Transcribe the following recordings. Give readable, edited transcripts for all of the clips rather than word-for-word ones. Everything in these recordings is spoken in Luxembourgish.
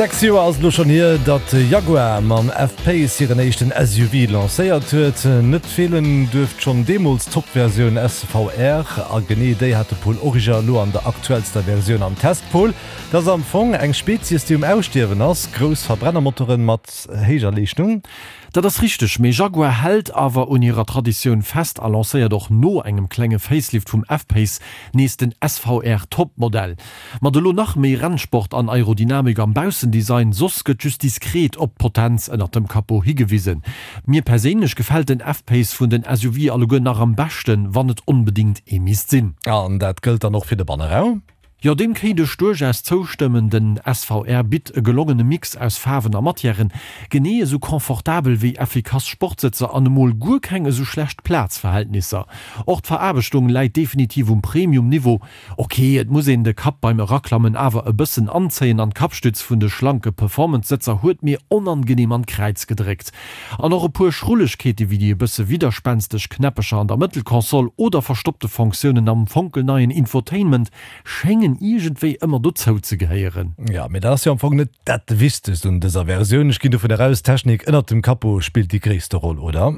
6 Joer ass et elo schonn hier, datt Jaguar mam F-Pace hiren éischten SUV lancéiert huet. Net feelen duerft schonn deemools d'Top-Versioun SVR. A genee déi hat de Paul Origer elo an der aktuellster Versioun am Test. Paul, dat ass am Fong eng Spezies, déi um Ausstierwen ass, grouss Verbrennermotoren mat héijer Leeschtung. Dat ass richteg, mee Jaguar hält awer un hirer Traditioun fest a lancéiert och no engem klenge Facelift vum F-Pace nees den SVR Top-Modell. Mat elo nach méi Rennsport an Aerodynamik am Baussendesign, soss gëtt just diskret op d'Potenz ënnert dem Capot higewisen. Mir perséinlech gefält den F-Pace vun den SUV alleguer nach am beschten, wann et onbedingt ee misst sinn. An dat gëllt dann och fir de Banneraum? Jo, deem kéint ech duerchaus zoustëmmen. Den SVR bitt e gelongene Mix aus Faarwen a Matièren, genee esou confortabel wéi effikass Sportsëtzer an emol guer keng esou schlecht Plazverhältnisser. Och d'Veraarbechtung läit definitiv um Premium-Niveau. Ok, et muss een de Kapp beim Eraklammen awer e bëssen anzéien an d'Kappstütz vun de schlanke Performance-Sëtzer huet mir onangenehm an d'Kräiz gedréckt. An och e puer Schrullegkeete wéi déi e bësse widderspänsteg Knäppecher an der Mëttelkonsole oder verstoppte Fonctiounen am fonkelneien Infotainment schéngen iergendwéi ëmmer dozou ze gehéieren. Jo, mee dat ass jo am Fong net dat Wichtegst un dëser Versioun. Ech ginn dovun aus, d'Technik ënnert dem Capot spillt déi gréisste Roll, oder?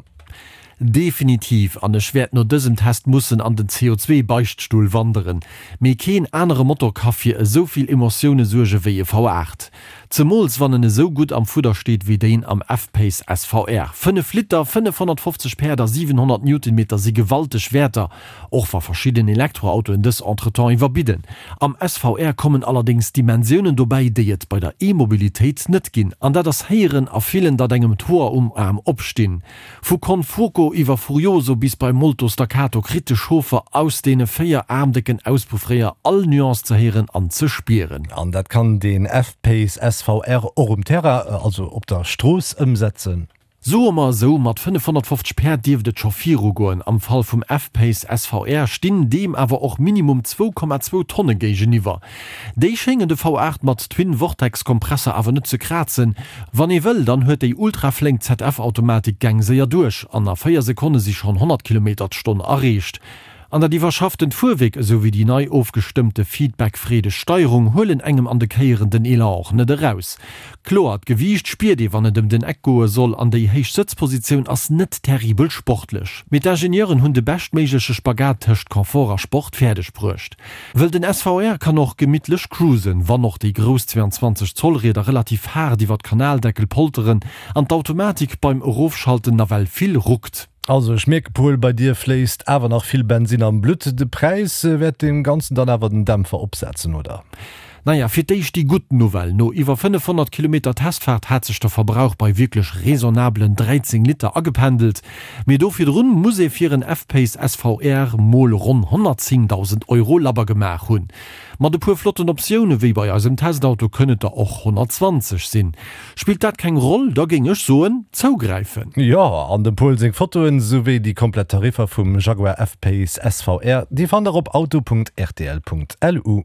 Definitiv, an ech wäert no dësem Test mussen an den CO2 Beichtstull wanderen. Mee keen anere Motor ka fir esou vill Emotioune suerge wéi e V8. Zemools wann en esou gutt am Fudder steet wéi deen am F-Pace SVR. 5 Liter, 550 Päerd a 700 Newtonmeter si gewalteg Wäerter, och wa verschidden Elektroautoen dës entretemps iwwerbidden. Am SVR kommen allerdéngs Dimensiounen dobäi, déi et bei der E-Mobilitéit net ginn. An dat ass héieren a fillen, datt engem d'Hoer um Aarm opstinn. Vu Con Fuoco iwwer Furioso bis bei Molto Staccato kritt de Chauffer aus deene 4 aarmdécken Auspuffréier all Nuance ze héieren an ze spieren. An dat kann den F-Pace SVR och um Terrain, also op der Strooss ëmsetzen. Soe mer esou, mat 550 Päerd dierft et scho virugoen. Am Fall vum F-Pace SVR stinn deem awer och minimum 2,2 Tonne géigeniwwer. Déi schéngen de V8 mat Twin-Vortex-Kompresser awer net ze krazen. Wann ee wëll, dann huet déi ultraflénk ZF-Automatik d'Gäng séier duerch an a 4 Sekonne si schonn 100 Kilometer d'Stonn erreecht. An dat iwwerschafftent Fuerwierk esou wéi déi nei ofgestëmmte feedback-freedeg Steierung huelen engem an de Kéieren den Elan och net eraus. Kloer, d'Gewiicht spiert ee wann et ëm den Eck goe soll an déi héich Sëtzpositioun ass net terribel sportlech. Mee d'Ingenieuren hunn de beschtméigleche Spagat tëscht Confort a Sport fäerdeg bruecht. Wëll den SVR kann och gemittlech cruisen, wann och déi grouss 22 Zoll Rieder relativ haart iwwer d'Kanaldeckel polteren an d'Automatik beim Erofschalten nawell vill ruckt. Also ech mierke Paul, bei dir fléisst awer nach vill Bensinn am Blutt. De Präis wäert deem Ganzen dann awer den Dämpfer opsetzen, oder? Naja, fir d'éischt déi gutt Nouvelle, No iwwer 500 Kilometer Testfaart hat sech de Verbrauch bei wierklech raisonnablen 13 Liter agependelt. Mee do virdrun muss ee fir en F-Pace SVR mol ronn 110.000 Euro labber gemaach hunn. Mat e puer flotten Optioune wéi bei eisem Testauto kënn et der och 120 sinn. Spillt dat keng Roll, da géing ech soen, zougräifen! Jo, an dem Paul seng Fotoen, souwéi déi komplett Tariffer vum Jaguar F-Pace SVR, déi fannt der op auto.rtl.lu.